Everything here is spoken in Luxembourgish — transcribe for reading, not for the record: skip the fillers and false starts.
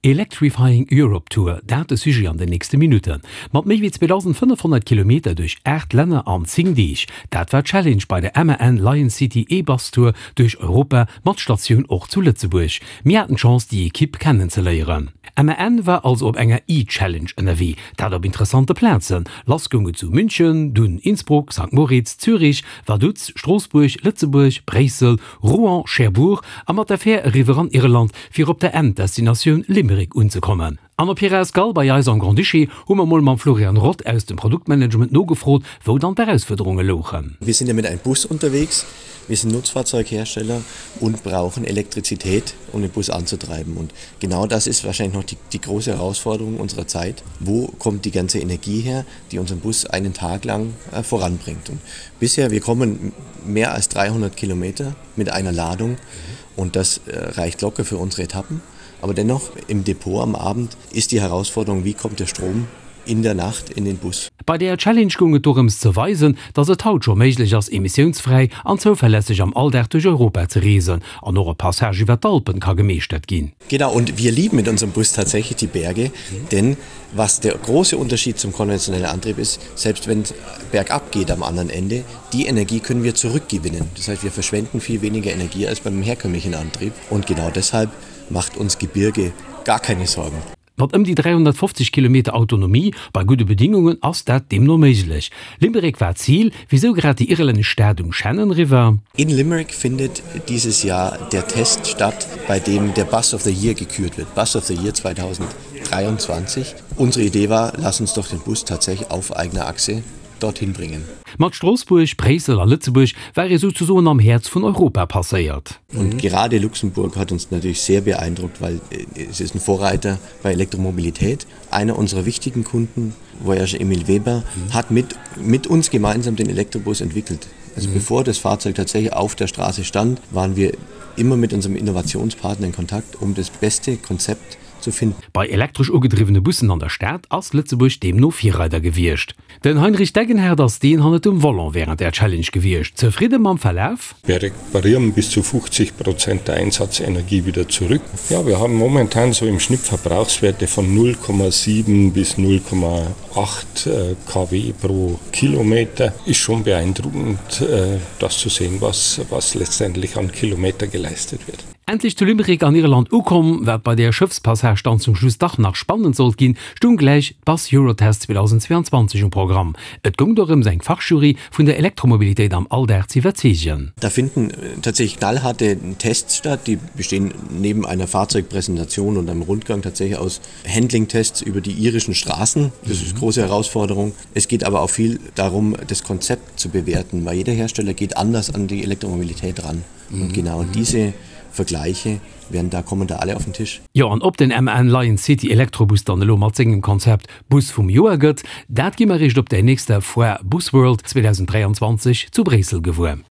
Electrifying Europe Tour, dat de Sujet an den nächste Minutten. Mat méi wéi 2.500 Kilometer duerch 8 Länner an 10 Deeg, dat war d'Challenge bei der MAN Lion City E-Bus Tour duerch Europa mat Statioun och zu Lëtzebuerg. Mir haten d'Chance déi Ekipp kennenzeléieren. MAN war also op enger E-Challenge ënnerwee, dat op interessante Plazen. Lass goung et zu München, dunn Innsbruck, Sankt Moritz, Zürich, Vaduz, Stroossbuerg, Lëtzebuerg, Bréissel, Rouen, Cherbourg a mat der Fähr eriwwer an Irland, fir op der Enddestinatioun Limerick unzekommen. An op hirer Escale bei eis am Grand-Duché hu mer mol mam Florian Roth aus dem Produktmanagement nogefrot, wou dann d'Erausfuerderunge louchen. Wir sind ja mit einem Bus unterwegs, wir sind Nutzfahrzeughersteller und brauchen Elektrizität, um den Bus anzutreiben. Und genau das ist wahrscheinlich noch die, die große Herausforderung unserer Zeit. Wo kommt die ganze Energie her, die unseren Bus einen Tag lang äh, voranbringt? Und bisher, wir kommen mehr als 300 Kilometer mit einer Ladung und das äh, reicht locker für unsere Etappen. Aber dennoch im Depot am Abend ist die Herausforderung, wie kommt der Strom in der Nacht in den Bus. Bei der Challenge goung et dorëms ze weisen, datt et haut scho méiglech ass, emissiounsfräi an zouverlässeg am Alldag duerch Europa ze reesen an och e Passage iwwer d'Alpen ka gemeeschtert ginn. Genau und wir lieben mit unserem Bus tatsächlich die Berge, denn was der große Unterschied zum konventionellen Antrieb ist, selbst wenn es bergab geht am anderen Ende, die Energie können wir zurückgewinnen. Das heißt, wir verschwenden viel weniger Energie als beim herkömmlichen Antrieb und genau deshalb macht uns Gebirge gar keine Sorgen. Mat ëm déi 350 Kilometer Autonomie bei gudde Bedingungen ass dat deemno méiglech. Limerick war d'Zil. Wisou grad déi irlännesch Stad um Shannon River? In Limerick findet dieses Jahr der Test statt, bei dem der Bus of the Year gekürt wird. Bus of the Year 2023. Unsere Idee war, lass uns doch den Bus tatsächlich auf eigener Achse dorthin bringen. Mat Stroossbuerg, Bréissel a Lëtzebuerg war ee souzesoen am Häerz vun Europa passéiert. Und gerade Luxemburg hat uns natürlich sehr beeindruckt, weil es ist ein Vorreiter bei Elektromobilität. Einer unserer wichtigen Kunden, Voyage Emil Weber, hat mit, mit uns gemeinsam den Elektrobus entwickelt. Also mhm. bevor das Fahrzeug tatsächlich auf der Straße stand, waren wir immer mit unserem Innovationspartner in Kontakt, um das beste Konzept zu finden. Bei elektresch ugedriwwene Bussen an der Stad ass Lëtzebuerg deemno Virreider gewiescht. Den Heinrich Degenhardt ass deen hannert dem Volant wärend der Challenge gewiescht. Zefridde mam Verlaf? Wir reparieren bis zu 50 Prozent der Einsatzenergie wieder zurück. Ja, wir haben momentan so im Schnitt Verbrauchswerte von 0,7 bis 0,8 kW pro Kilometer. Ist schon beeindruckend, das zu sehen, was, was letztendlich an Kilometer geleistet wird. Endlech zu Limerick an Irland ukomm, wat bei där Schëffspassage dann zum Schluss dach nach spannend sollt ginn, stung gläich d'Bus Eurotest 2022 um Programm. Et goung dorëms eng Fachjury vun der Elektromobilitéit am Alldag ze iwwerzeegen. Da finden tatsächlich knallharte Tests statt, die bestehen neben einer Fahrzeugpräsentation und einem Rundgang tatsächlich aus Handlingtests über die irischen Straßen. Das ist große Herausforderung. Es geht aber auch viel darum, das Konzept zu bewerten, weil jeder Hersteller geht anders an die Elektromobilität ran. Und genau diese Vergleiche werden da kommen da alle auf den Tisch. Jo, an ob den MAN Lion City Elektrobus dann elo mat sengem Konzept Bus vum Joer gëtt, dat gi mer eréischt op der nächster Foire Busworld 2023 zu Bréissel gewuer.